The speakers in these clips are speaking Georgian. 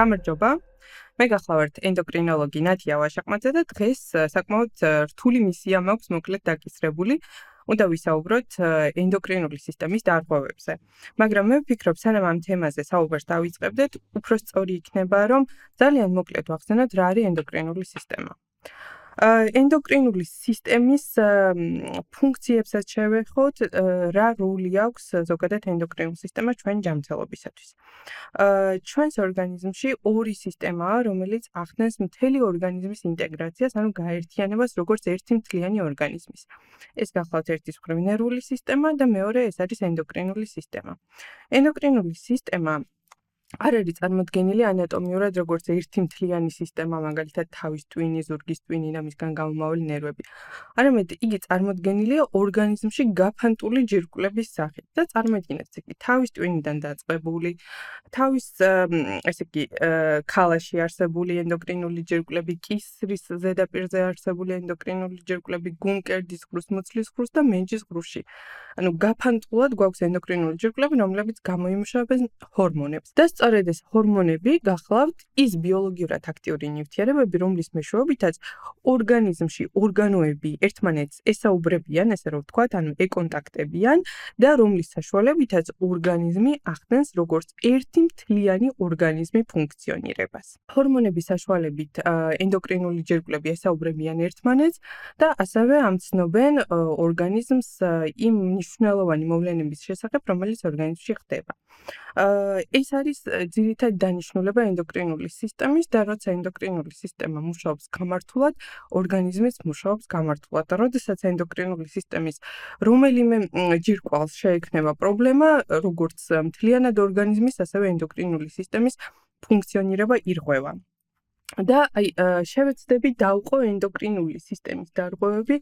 გამარჯობა. მე გახლავართ ენდოკრინოლოგი ნათია ვაშაყმაძე და დღეს საკმაოდ რთული მისია მაქვს მოკლედ დაკისრებული. უნდა ვისაუბროთ ენდოკრინული სისტემის დარღვევებზე. მაგრამ მე ვფიქრობ, სანამ ამ თემაზე საუბარს დავიწყებდეთ, უფრო სწორი იქნება, რომ ძალიან მოკლედ ვახსენოთ, რა არის ენდოკრინული სისტემა. ენდოკრინული სისტემის ფუნქციებსაც შევეხოთ, რა როლი აქვს ზოგადად ენდოკრინულ სისტემას ჩვენ ჯანმრთელობისათვის. ჩვენს ორგანიზმში ორი სისტემაა, რომელიც ახდენს მთელი ორგანიზმის ინტეგრაციას, ანუ გაერთიანებას როგორც ერთი მთლიანი ორგანიზმის. ეს გახლავთ ერთის მხრივ ნერვული სისტემა და მეორე ეს არის ენდოკრინული სისტემა. ენდოკრინული სისტემა არ არის წარმოდგენილი ანატომიურად როგორც ერთი მთლიანი სისტემა, მაგალითად თავის ტვინი, ზურგის ტვინი და მისგან გამომავალი ნერვები. არამედ იგი წარმოდგენილია ორგანიზმში გაფანტული ჯირკვლების სახით და წარმოიდგინეთ იგი თავის ტვინიდან დაწყებული, თავის ქალაში არსებული ენდოკრინული ჯირკვლები, კისრის ზედაპირზე არსებული ენდოკრინული ჯირკვლები, გულმკერდის ღრუს, მუცლის ღრუს და მენჯის ღრუში. ანუ გაფანტულად გვაქვს ენდოკრინული ჯირკვლები, რომლებიც გამოიმუშავებენ ჰორმონებს. და სწორედ ეს ჰორმონები გახლავთ ის ბიოლოგიურად აქტიური ნივთიერებები, რომლის მეშვეობითაც ორგანიზმში ორგანოები ერთმანეთს ესაუბრებიან, ესე რომ ვთქვათ, ანუ ეკონტაქტებიან და რომლის საშუალებითაც ორგანიზმი ახდენს როგორც ერთი მთლიანი ორგანიზმი ფუნქციონირებას. ჰორმონების საშუალებით ენდოკრინული ჯირკვლები ესაუბრებიან ერთმანეთს და ასევე ამცნობენ ორგანიზმს იმ მნიშვნელოვანი მოვლენების შესახებ, რომელიც ორგანიზმში ხდება. ეს არის ძირითადი დანიშნულება ენდოკრინული სისტემის და როცა ენდოკრინული სისტემა მუშაობს გამართულად, ორგანიზმიც მუშაობს გამართულად. და როდესაც ენდოკრინული სისტემის რომელიმე ჯირკვალს შეექმნება პრობლემა, როგორც მთლიანად ორგანიზმის, ასევე ენდოკრინული სისტემის ფუნქციონირება ირღვევა. და შევეცდები დავყო ენდოკრინული სისტემის დარღვევები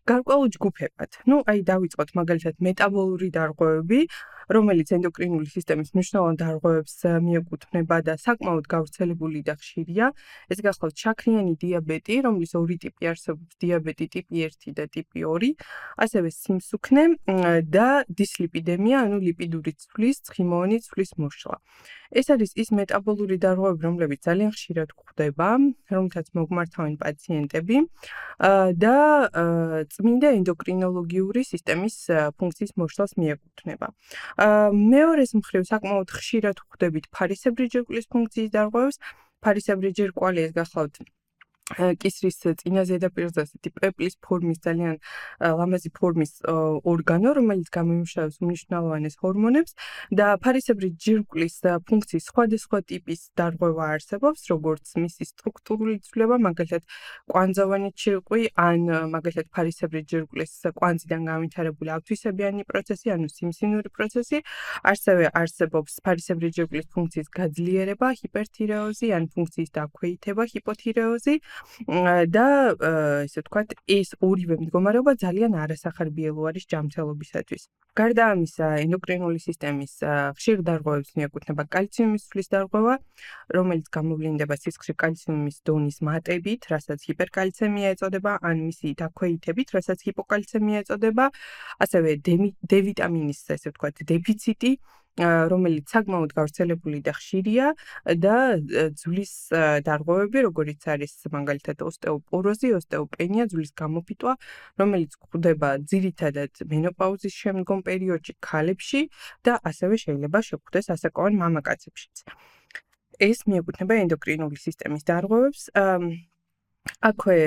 გარკვეულ ჯგუფებად. დავიწყოთ მაგალითად მეტაბოლური დარღვევები, რომელიც ენდოკრინული სისტემის მნიშვნელოვან დარღვევებს მიეკუთვნება და საკმაოდ გავრცელებული და ხშირია. ეს გახლავთ შაქრიანი დიაბეტი, რომლის ორი ტიპი არსებობს, დიაბეტი ტიპი 1 და ტიპი 2, ასევე სიმსუქნე და დისლიპიდემია, ანუ ლიპიდური ცვლის, ცხიმოვანი ცვლის მოშლა. ეს არის ის მეტაბოლური დარღვევები, რომლებიც ძალიან ხშირად გვხვდება, რომლითაც მოგმართავენ პაციენტები და წმინდა ენდოკრინოლოგიური სისტემის ფუნქციის მოშლას მიეკუთვნება. მეორეს მხრივ საკმაოდ ხშირად ვხვდებით ფარისებრი ჯირკვლის ფუნქციის დარღვევებს. ფარისებრი ჯირკვალი ეს გახლავთ კისრის წინა ზედაპირზე ასეთი პეპლის ფორმის ძალიან ლამაზი ფორმის ორგანო, რომელიც გამოიმუშავებს უმნიშვნელოვანეს ჰორმონებს და ფარისებრი ჯირკვლის ფუნქციის სხვადასხვა ტიპის დარღვევა არსებობს, როგორც მისი სტრუქტურული ცვლილება, მაგალითად კვანძოვანი ჯირკვი, ან მაგალითად ფარისებრი ჯირკვლის კვანძიდან განვითარებული ავთვისებიანი პროცესი, ანუ სიმსინური პროცესი. ასევე არსებობს ფარისებრი ჯირკვლის ფუნქციის გაძლიერება, ჰიპერთირეოზი, ან ფუნქციის დაქვეითება, ჰიპოთირეოზი. და ესე ვთქვათ, ეს ორივე მდგომარეობა ძალიან არასახარბიელო არის ჯანმრთელობისათვის. გარდა ამისა, ენდოკრინული სისტემის ხშირ დარღვევებს მიეკუთვნება კალციუმის ცვლის დარღვევა, რომელიც გამოვლინდება სისხლში კალციუმის დონის მატებით, რასაც ჰიპერკალცემია ეწოდება, ან მისი დაქვეითებით, რასაც ჰიპოკალცემია ეწოდება, ასევე D ვიტამინის, ესე ვთქვათ, დეფიციტი, რომელიც საკმაოდ გავრცელებული და ხშირია და ძვლის დარღვევები, როგორიც არის მაგალითად ოსტეოპოროზი, ოსტეოპენია, ძვლის გამოფიტვა, რომელიც გვხვდება ძირითადად მენოპაუზის შემდგომ პერიოდში ქალებში და ასევე შეიძლება შეგვხვდეს ასაკოვან მამაკაცებშიც. ეს მიეკუთვნება ენდოკრინული სისტემის დარღვევებს. აქვე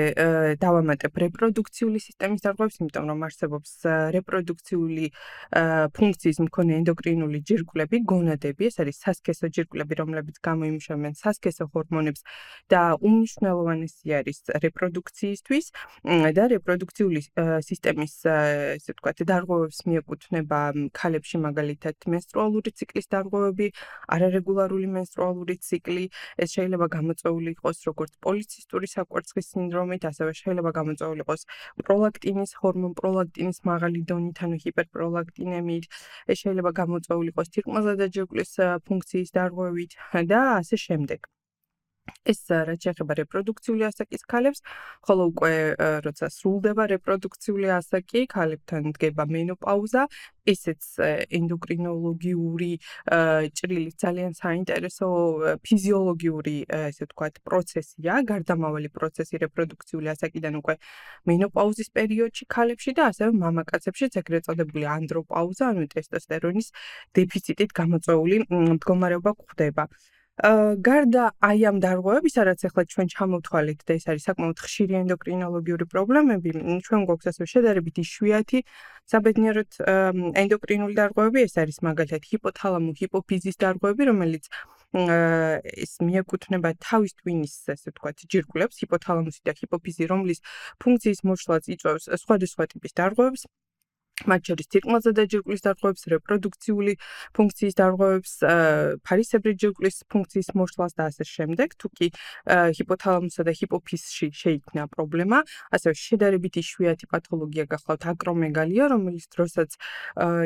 დავამატებ რეპროდუქციული სისტემის დარღვევებს, იმიტომ რომ არსებობს რეპროდუქციული ფუნქციის მქონე ენდოკრინული ჯირკვლები, გონადები, ეს არის სასქესო ჯირკვლები, რომლებიც გამოიმუშავებენ სასქესო ჰორმონებს და უმნიშვნელოვანესი არის რეპროდუქციისთვის და რეპროდუქციული სისტემის, ესე ვთქვათ, დარღვევებს მიეკუთვნება ქალებში მაგალითად მენსტრუალური ციკლის დარღვევები, არარეგულარული მენსტრუალური ციკლი, ეს შეიძლება გამოწვეული იყოს როგორც პოლიცისტური საკვერცხის სინდრომით, ასევე შეიძლება გამოწვეული იყოს პროლაქტინის ჰორმონ პროლაქტინის მაღალი დონით, ანუ ჰიპერპროლაქტინემიით, ეს შეიძლება გამოწვეული იყოს თირკმელზედა ჯირკვლის ფუნქციის დარღვევით და ასე შემდეგ. ეს რაც შეეხება რეპროდუქციული ასაკის ქალებს, ხოლო უკვე როცა სრულდება რეპროდუქციული ასაკი, ქალებთან დგება მენოპაუზა, ესეც ენდოკრინოლოგიური ჭრილის ძალიან საინტერესო ფიზიოლოგიური ესე ვთქვათ პროცესია, გარდამავალი პროცესი რეპროდუქციული ასაკიდან უკვე მენოპაუზის პერიოდში ქალებში და ასევე მამაკაცებშიც ეგრეთ წოდებული ანდროპაუზა, ანუ ტესტოსტერონის დეფიციტით გამოწვეული მდგომარეობა გვხვდება. გარდა აი ამ დარღვევებისა, რაც ახლა ჩვენ ჩამოვთვალეთ და ეს არის საკმაოდ ხშირი ენდოკრინოლოგიური პრობლემები, ჩვენ გვაქვს ასევე შედარებით იშვიათი საბედნიეროდ ენდოკრინული დარღვევები, ეს არის მაგალითად ჰიპოთალამო-ჰიპოფიზის დარღვევები, რომელიც ეს მიეკუთვნება თავის ტვინის, ესე ვთქვათ, ჯირკვლებს, ჰიპოთალამუსი და ჰიპოფიზი, რომლის ფუნქციის მოშლაც იწვევს სხვადასხვა ტიპის დარღვევებს. მათ შორის თირკმელზე დაჯირკვლის დარღვევებს, რეპროდუქციული ფუნქციის დარღვევებს, ფარისებრი ჯირკვლის ფუნქციის მოშლას და ასე შემდეგ. თუკი ჰიპოთალამუსსა და ჰიპოფიზში შეიქმნა პრობლემა, ასევე შედარებით იშვიათი პათოლოგია გახლავთ აკრომეგალია, რომელიც დროსაც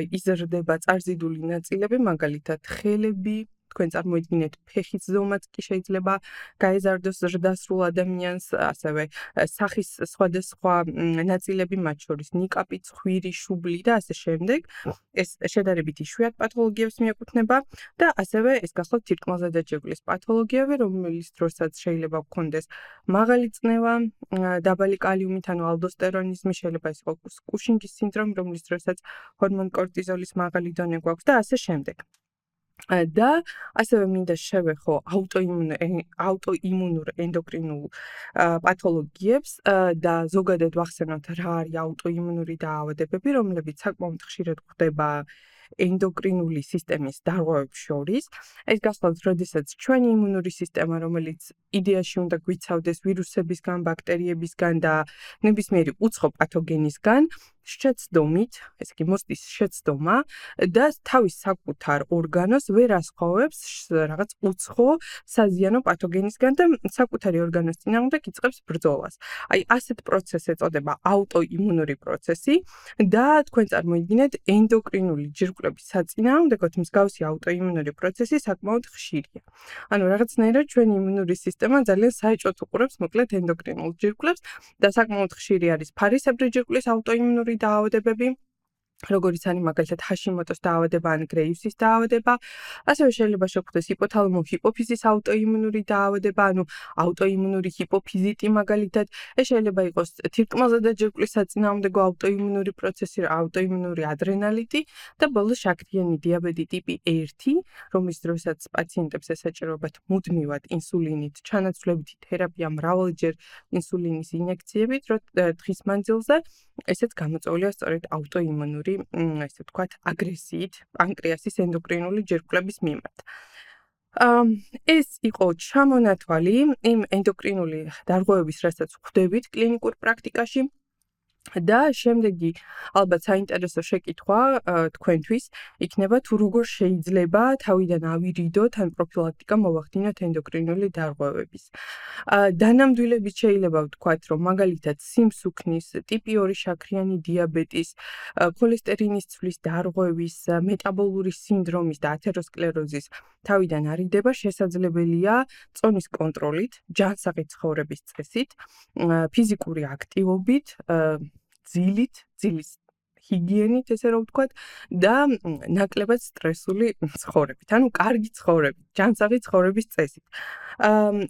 იზრდება წარზიდული ნაწილები, მაგალითად ხელები, თქვენ წარმოიდგინეთ ფეხის ზომაც კი შეიძლება გაეზარდოს ზრდასრულ ადამიანს, ასევე სახის სხვადასხვა ნაწილები, მათ შორის ნიკაპი, ცხვირი, შუბლი და ასე შემდეგ. ეს შედარებით იშვიათ პათოლოგიებს მიეკუთვნება და ასევე ეს გახლავთ თირკმელზე დაჯირკვლის პათოლოგიები, რომლის დროსაც შეიძლება გქონდეს მაღალი წნევა, დაბალი კალიუმით, ანუ ალდოსტერონიზმი, შეიძლება ეს იყოს კუშინგის სინდრომი, რომლის დროსაც ჰორმონ კორტიზოლის მაღალი დონე გვაქვს და ასე შემდეგ. და ასევე მინდა შევეხო აუტოიმუნურ ენდოკრინულ პათოლოგიებს და ზოგადად ვახსენოთ რა არის აუტოიმუნური დაავადებები, რომლებიც საკმაოდ ხშირად გვხვდება ენდოკრინული სისტემის დარღვევებს შორის. ეს გახლავთ, როდესაც ჩვენი იმუნური სისტემა, რომელიც იდეაში უნდა გვიცავდეს ვირუსებისგან, ბაქტერიებისგან და ნებისმიერი უცხო პათოგენისგან, შეცდომით, ესე იგი მოსდის შეცდომა და თავის საკუთარ ორგანოს ვერ ასხოვებს რაღაც უცხო საზიანო პათოგენისგან და საკუთარი ორგანოს წინააღმდეგ იწყებს ბრძოლას. აი ასეთ პროცესს ეწოდება აუტოიმუნური პროცესი და თქვენ წარმოიდგინეთ ენდოკრინული ჯირკვლების საწინააღმდეგოდ მსგავსი აუტოიმუნური პროცესი საკმაოდ ხშირია. ანუ რაღაცნაირად ჩვენი იმუნური სისტემა ძალიან საეჭვოდ უყურებს მოკლედ ენდოკრინულ ჯირკვლებს და საკმაოდ ხშირი არის ფარისებრი ჯირკვლის აუტოიმუნური დაავადებები, როგორც არის მაგალითად ჰაშიმოტოს დაავადება ან გრეივსის დაავადება, ასევე შეიძლება შეგვხვდეს ჰიპოთალამო-ჰიპოფიზის აუტოიმუნური დაავადება, ანუ აუტოიმუნური ჰიპოფიზიტი მაგალითად, ეს შეიძლება იყოს თირკმელზე დაჯირკვლის საწინააღმდეგო აუტოიმუნური პროცესი, აუტოიმუნური ადრენალიტი და ბოლოს შაქრიანი დიაბეტი ტიპი 1, რომლის დროსაც პაციენტებს ესაჭიროებათ მუდმივად ინსულინით ჩანაცვლებითი თერაპია, მრავალჯერ ინსულინის ინjekციებით, დღის მანძილზე, ესეც გამოწვეულია სწორედ აუტოიმუნური ესე ვთქვათ, აგრესიით პანკრეასის ენდოკრინული ჯირკვლების მიმართ. ეს იყო ჩამონათვალი იმ ენდოკრინული დარღვევების, რასაც ვხვდებით კლინიკურ პრაქტიკაში და შემდეგი ალბათ საინტერესო შეკითხვა თქვენთვის იქნება თუ როგორ შეიძლება თავიდან ავირიდოთ ან პროფილაქტიკა მოვახდინოთ ენდოკრინული დარღვევების. დანამდვილებით შეიძლება ვთქვათ, რომ მაგალითად სიმსუქნის, ტიპი 2 შაქრიანი დიაბეტის, ქოლესტერინის ცვლის დარღვევის, მეტაბოლური სინდრომის და ათეროსკლეროზის თავიდან არიდება შესაძლებელია წონის კონტროლით, ჯანსაღი ცხოვრების წესით, ფიზიკური აქტივობით, ძილის ჰიგიენით, ესე რომ ვთქვათ, და ნაკლებად სტრესული ცხოვრებით, ანუ კარგი ცხოვრებით, ჯანსაღი ცხოვრების წესით.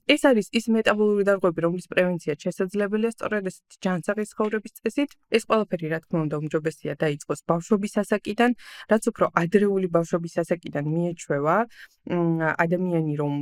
ეს არის ის მეტაბოლური დარღვევები, რომლის პრევენცია შესაძლებელია სწორედ ესეთი ჯანსაღი ცხოვრების წესით. ეს ყველაფერი, რა თქმა უნდა, უმჯობესია დაიწყოს ბავშვობის ასაკიდან, რაც უფრო ადრეული ბავშვობის ასაკიდან მიეჩვევა ადამიანი, რომ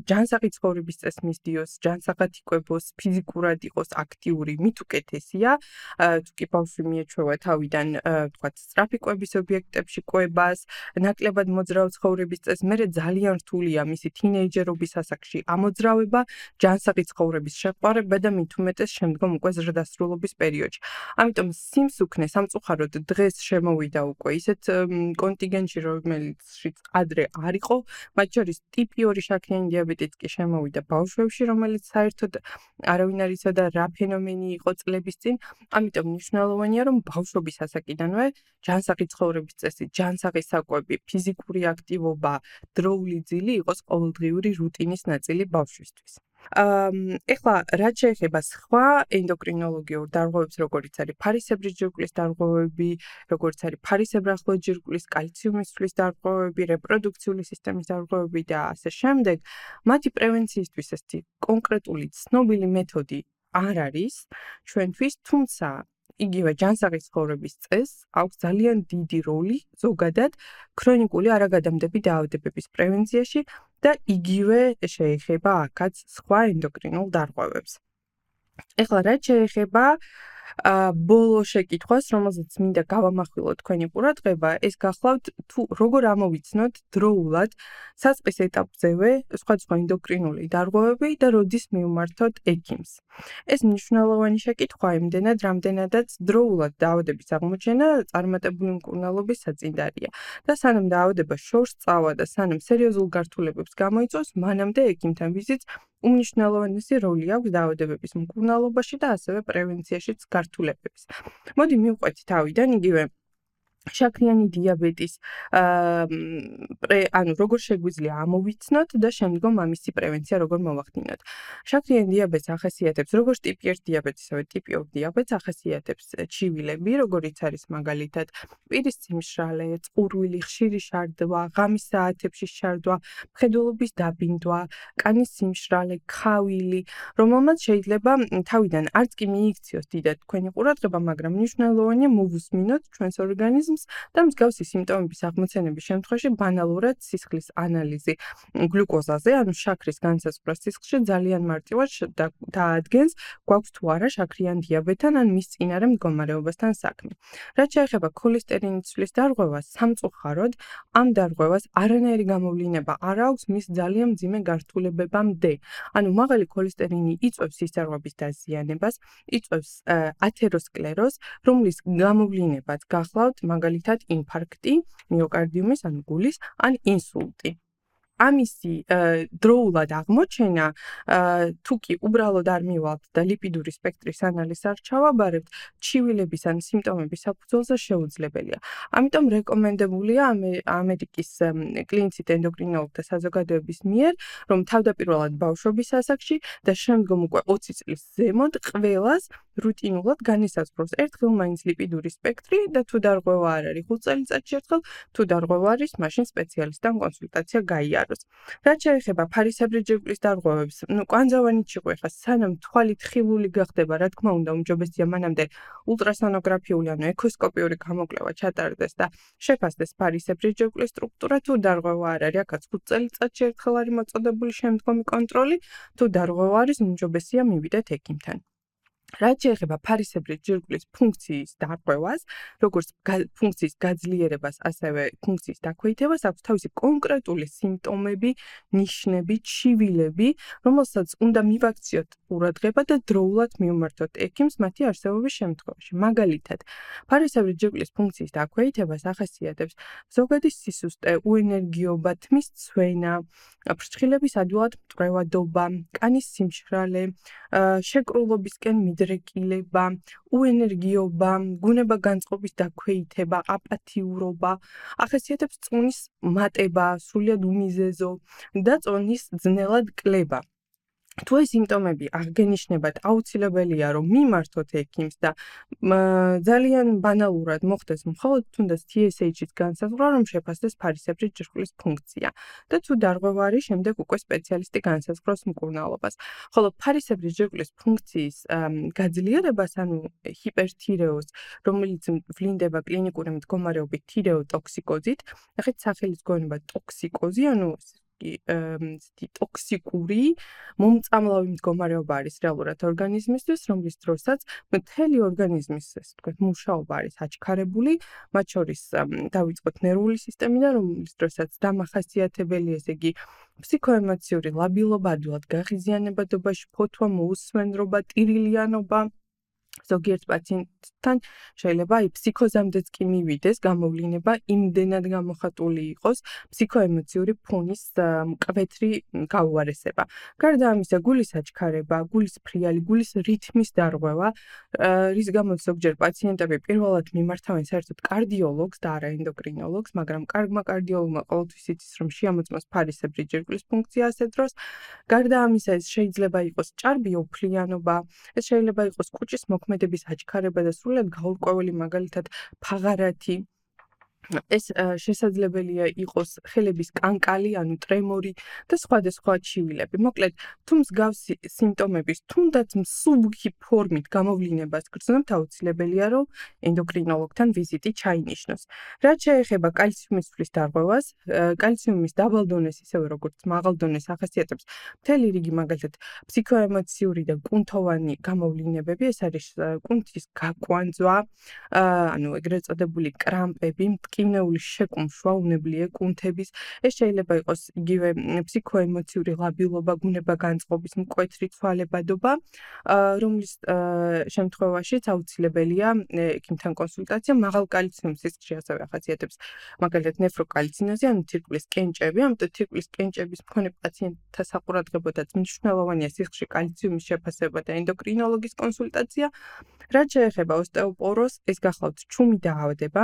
ჯანსაღი ცხოვრების წესს მისდიოს, ჯანსაღად იკვებოს, ფიზიკურად იყოს აქტიური, მით უკეთესია. თუკი ბავშვი მიეჩვევა თავიდან, ვთქვათ, სწრაფი კვების ობიექტებში კვებას, ნაკლებად მოძრავ ცხოვრების წესს, მერე ძალიან რთულია მისი თინეიჯერობის ასაკში ამოძრავება, ჯანსაღი ცხოვრების შეყვარება და მით უმეტეს შემდგომ უკვე ზრდასრულობის პერიოდში. ამიტომ სიმსუქნე სამწუხაროდ დღეს შემოვიდა უკვე ისეთ კონტინგენტში, რომელშიც ადრე არ იყო, მათ შორის ტიპი 2 შაქრიანი დიაბეტიც კი შემოვიდა ბავშვებში, რომელიც საერთოდ არავინ არ იცოდა რა ფენომენი იყო წლების წინ. ამიტომ მნიშვნელოვანია, რომ ბავშვობის ასაკიდანვე ჯანსაღი ცხოვრების წესი, ჯანსაღი საკვები, ფიზიკური აქტივობა, დროული ძილი იყოს ყოველდღიური რუტინის ნაწილი. ნაწილი ბავშვისთვის. ეხლა რაც შეეხება სხვა ენდოკრინოლოგიურ დარღვევებს, როგორიც არის ფარისებრი ჯირკვლის დარღვევები, როგორც არის ფარისებრ-ახლო ჯირკვლის, კალციუმის ცვლის დარღვევები, რეპროდუქციული სისტემის დარღვევები და ასე შემდეგ, მათი პრევენციისთვის ესეთი კონკრეტული ცნობილი მეთოდი არ არის ჩვენთვის, თუმცა იგივე ჯანსაღი ცხოვრების წესს აქვს ძალიან დიდი როლი ზოგადად ქრონიკული არაგადამდები დაავადებების პრევენციაში და იგივე შეეხება აქაც სხვა ენდოკრინულ დარღვევებს. ეხლა რაც შეეხება ბოლო შეკითხვას, რომელზეც მინდა გავამახვილო თქვენი ყურადღება, ეს გახლავთ თუ როგორ ამოვიცნოთ დროულად საწყის ეტაპზევე სხვადასხვა ენდოკრინული დარღვევები და როდის მივმართოთ ექიმს. ეს მნიშვნელოვანი შეკითხვაა იმდენად, რამდენადაც დროულად დაავადების აღმოჩენა წარმატებული მკურნალობის საწინდარია და სანამ დაავადება შორს წავა და სანამ სერიოზულ გართულებებს გამოიწვევს, მანამდე ექიმთან ვიზიტს უმნიშვნელოვანესი როლი აქვს დაავადებების მკურნალობაში და ასევე პრევენციაშიც გართულებების. მოდი მივყვეთ თავიდან იგივე შაქრიანი დიაბეტის როგორ შეგვიძლია ამოვიცნოთ და შემდგომ ამისი პრევენცია როგორ მოვახდინოთ. შაქრიანი დიაბეტს ახასიათებს როგორც ტიპი 1 დიაბეტს, ასევე ტიპი 2 დიაბეტს ახასიათებს ჩივილები, როგორიც არის მაგალითად პირის სიმშრალე, წყურვილი, ხშირი შარდვა, ღამის საათებში შარდვა, მხედველობის დაბინდვა, კანის სიმშრალე, ქავილი, რომელმაც შეიძლება თავიდან არც კი მიიქციოს დიდად თქვენი ყურადღება, მაგრამ მნიშვნელოვანია მოვუსმინოთ ჩვენს ორგანიზმს და მსგავსი სიმპტომების აღმოცენების შემთხვევაში ბანალურად სისხლის ანალიზი გლუკოზაზე, ანუ შაქრის განსაზღვრა სისხლში ძალიან მარტივად დაადგენს, გვაქვს თუ არა შაქრიან დიაბეტთან ან მის წინარე მდგომარეობასთან საქმე. რაც შეეხება ქოლესტერინის ცვლის დარღვევას, სამწუხაროდ ამ დარღვევას არანაირი გამოვლინება არ აქვს მის ძალიან მძიმე გართულებებამდე. ანუ მაღალი ქოლესტერინი იწვევს სისხლძარღვების დაზიანებას, იწვევს ათეროსკლეროზს, რომლის გამოვლინებაც გახლავთ მაგალითად ინფარქტი, მიოკარდიუმის, ანუ გულის, ან ინსულტი. ამისი დროულად აღმოჩენა თუ კი უბრალოდ არ მივალთ და ლიპიდური სპექტრის ანალიზს არ ჩავაბარებთ, ჩივილების ან სიმპტომების საფუძველზე შეუძლებელია. ამიტომ რეკომენდებულია ამერიკის კლინიცით ენდოკრინოლოგთა საზოგადოების მიერ, რომ თავდაპირველად ბავშვობის ასაკში და შემდგომ უკვე 20 წლის ზემოთ ყველას რუტინულად განისაზღვროს ერთხელ მაინც ლიპიდური სპექტრი და თუ დარღვევა არ არის 5 წელიწადში ერთხელ, თუ დარღვევა არის, მაშინ სპეციალისტთან კონსულტაცია გაიაროს. რაც შეეხება ფარისებრი ჯირკვლის დარღვევებს, კვანძავანი ჭიყვი ხა სანამ თვალი თხილული გახდება, რა თქმა უნდა, უმჯობესია მანამდე ულტრასონოგრაფიული, ანუ ექოსკოპიური გამოკვლევა ჩატარდეს და შეფასდეს ფარისებრი ჯირკვლის სტრუქტურა, თუ დარღვევა არ არის, აქაც 5 წელიწადში ერთხელ არის მოწოდებული შემდგომი კონტროლი, თუ დარღვევა არის, უმჯობესია მივიდეთ ექიმთან. რაც შეეხება ფარისებრი ჯირკვლის ფუნქციის დარღვევას, როგორც ფუნქციის გაძლიერებას, ასევე ფუნქციის დაქვეითებას, აქვს თავისი კონკრეტული სიმპტომები, ნიშნები, ჩივილები, რომელსაც უნდა მივაქციოთ ყურადღება და დროულად მივმართოთ ექიმს მათი არსებობის შემთხვევაში. მაგალითად, ფარისებრი ჯირკვლის ფუნქციის დაქვეითებას ახასიათებს ზოგადი სისუსტე, უენერგიობა, თმის ცვენა, ფრჩხილების ადვილად მტვრევადობა, კანის სიმშრალე, შეკრულობისკენ მიდრეკილება, უენერგიობა, გუნება განწყობის დაქვეითება, აპათიურობა, ახასიათებს წონის მატება, სრულიად უმიზეზო და წონის ძნელად კლება. თუ ეს სიმპტომები აღგენიშნებათ, აუცილებელია რომ მიმართოთ ექიმს და ძალიან ბანალურად მოხდეს მხოლოდ თუნდაც TSH-ის განსაზღვრა, რომ შეფასდეს ფარისებრი ჯირკვლის ფუნქცია და თუ დარღვევა არის, შემდეგ უკვე სპეციალისტი განსაზღვროს მკურნალობას. ხოლო ფარისებრი ჯირკვლის ფუნქციის გაძლიერებას, ანუ ჰიპერთირეოზს, რომელიც ვლინდება კლინიკური მდგომარეობით თირეოტოქსიკოზით, ნახეთ სახელის გონება ტოქსიკოზი, ანუ ტოქსიკური მომწამლავი მდგომარეობა არის რეალურად ორგანიზმისთვის, რომლის დროსაც მთელი ორგანიზმის, ასე ვთქვათ, მუშაობა არის აჩქარებული, მათ შორის დავიწყოთ ნერვული სისტემიდან, რომლის დროსაც დამახასიათებელი, ესე იგი, ფსიქოემოციური ლაბილობა, ადვილად გაღიზიანებადობაში, ფოთვა, მოუსვენრობა, ტირილიანობა, ზოგიერთ პაციენტთან შეიძლება ფსიქოზამდეც კი მივიდეს გამოვლინება, იმდენად გამოხატული იყოს ფსიქოემოციური ფონის მკვეთრი გაუარესება. გარდა ამისა, გულის აჩქარება, გულის ფრიალი, გულის რითმის დარღვევა, რის გამოც ზოგჯერ პაციენტები პირველად მიმართავენ საერთოდ კარდიოლოგს და არა ენდოკრინოლოგს, მაგრამ კარგმა კარდიოლოგმა ყოველთვის იცის, რომ შეამოწმოს ფარისებრი ჯირკვლის ფუნქცია ასეთ დროს. გარდა ამისა, ეს შეიძლება იყოს ჭარბი ოფლიანობა, ეს შეიძლება იყოს კუჭის მოქმედების აჩქარება და სრულად გაურკვეველი, მაგალითად ფაღარათი. ეს შესაძლებელია იყოს ხელების კანკალი, ანუ ტრემორი და სხვადასხვა ჩივილები. მოკლედ, თუ მსგავსი სიმპტომების, თუნდაც მსუბუქი ფორმით გამოვლინებას გრძნობთ, აუცილებელია, რომ ენდოკრინოლოგთან ვიზიტი ჩაინიშნოს. რაც შეეხება კალციუმის ცვლის დარღვევას, კალციუმის დაბალ დონეს, ისევე როგორც მაღალ დონეს ახასიათებს მთელი რიგი, მაგალითად, ფსიქოემოციური და კუნთოვანი გამოვლინებები, ეს არის კუნთის გაკვანძვა, ანუ ეგრეთ წოდებული კრამპები, მტკივნეული შეკუმშვა, უნებლიე კუნთების, ეს შეიძლება იყოს იგივე ფსიქოემოციური ლაბილობა, ბუნება განწყობის, მკვეთრი ცვალებადობა, რომლის შემთხვევაშიც აუცილებელია ექიმთან კონსულტაცია. მაღალ კალციუმის სისქრე ასევე ახასიათებს მაგალითად ნეფროკალცინოზი, ანუ თირკმლის კენჭები, ამიტომ თირკმლის კენჭების მქონე პაციენტთა საყურადღებოდაც მნიშვნელოვანია სისქრში კალციუმის შეფასება და ენდოკრინოლოგის კონსულტაცია. რაც შეეხება ოსტეოპოროზს, ეს გახლავთ ჩუმი დაავადება.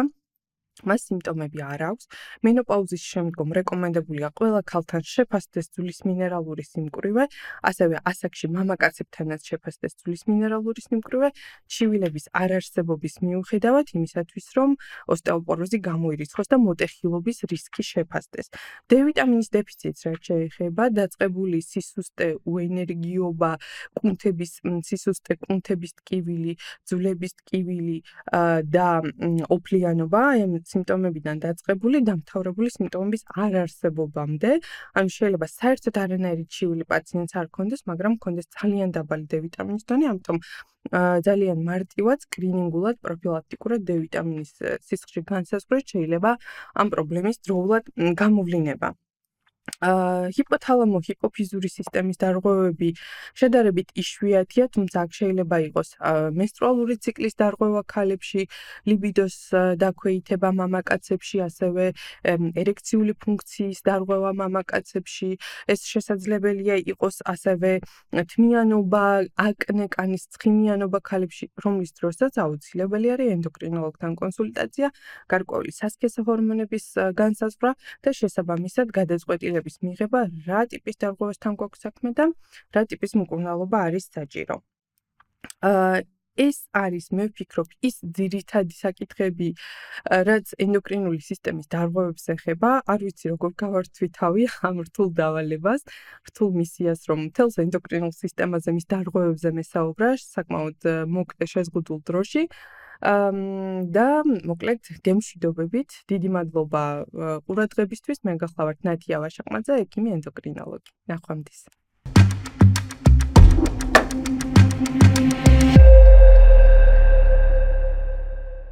მას სიმპტომები არ აქვს. მენოპაუზის შემდგომ რეკომენდებულია ყველა ქალთან შეფასდეს ძვლის მინერალური სიმკვრივე, ასევე ასაკში მამაკაცებთანაც შეფასდეს ძვლის მინერალური სიმკვრივე, ჩივილების არარსებობის მიუხედავად იმისათვის, რომ ოსტეოპოროზი გამოირიცხოს და მოტეხილობის რისკი შეფასდეს. D ვიტამინის დეფიციტს რაც შეეხება, დაწყებული სისუსტე, უენერგიობა, კუნთების სისუსტე, კუნთების ტკივილი, ძვლების ტკივილი და ოფლიანობა, სიმპტომებიდან დაწყებული დამთავრებული სიმპტომების არარსებობამდე, ანუ შეიძლება საერთოდ არანაირი ჩივილი პაციენტს არ ქონდეს, მაგრამ ქონდეს ძალიან დაბალი D ვიტამინის დონე, ამიტომ ძალიან მარტივად სკრინინგულად პროფილაქტიკურად D ვიტამინის სისხლში განსაზღვრეთ შეიძლება ამ პრობლემის დროულად გამოვლინება. ჰიპოთალამო-ჰიპოფიზური სისტემის დარღვევები შედარებით იშვიათია, თუმცა აქ შეიძლება იყოს მენსტრუალური ციკლის დარღვევა ქალებში, ლიბიდოს დაქვეითება მამაკაცებში, ასევე ერექციული ფუნქციის დარღვევა მამაკაცებში. ეს შესაძლებელია იყოს ასევე თმიანობა, აკნე, კანის ცხიმიანობა ქალებში, რომლის დროსაც აუცილებელი არის ენდოკრინოლოგთან კონსულტაცია, გარკვეული სასქესო ჰორმონების განსაზღვრა და შესაბამისად გადაწყვეტილების მიღება, რა ტიპის დარღვევასთან გვაქვს საქმე და რა ტიპის მკურნალობა არის საჭირო. ეს არის, მე ვფიქრობ, ის ძირითადი საკითხები, რაც ენდოკრინული სისტემის დარღვევებს ეხება. არ ვიცი, როგორ გავართვი თავი ამ რთულ დავალებას, რთულ მისიას, რომ მთელს ენდოკრინულ სისტემაზე, მის დარღვევებზე მესაუბრა, საკმაოდ მოკლე შეზღუდულ დროში. და მოკლედ გემშვიდობებით, დიდი მადლობა ყურადღებისთვის. მე გახლავართ ნათია ვაშაყმაძე, ექიმი ენდოკრინოლოგი. ნახვამდის.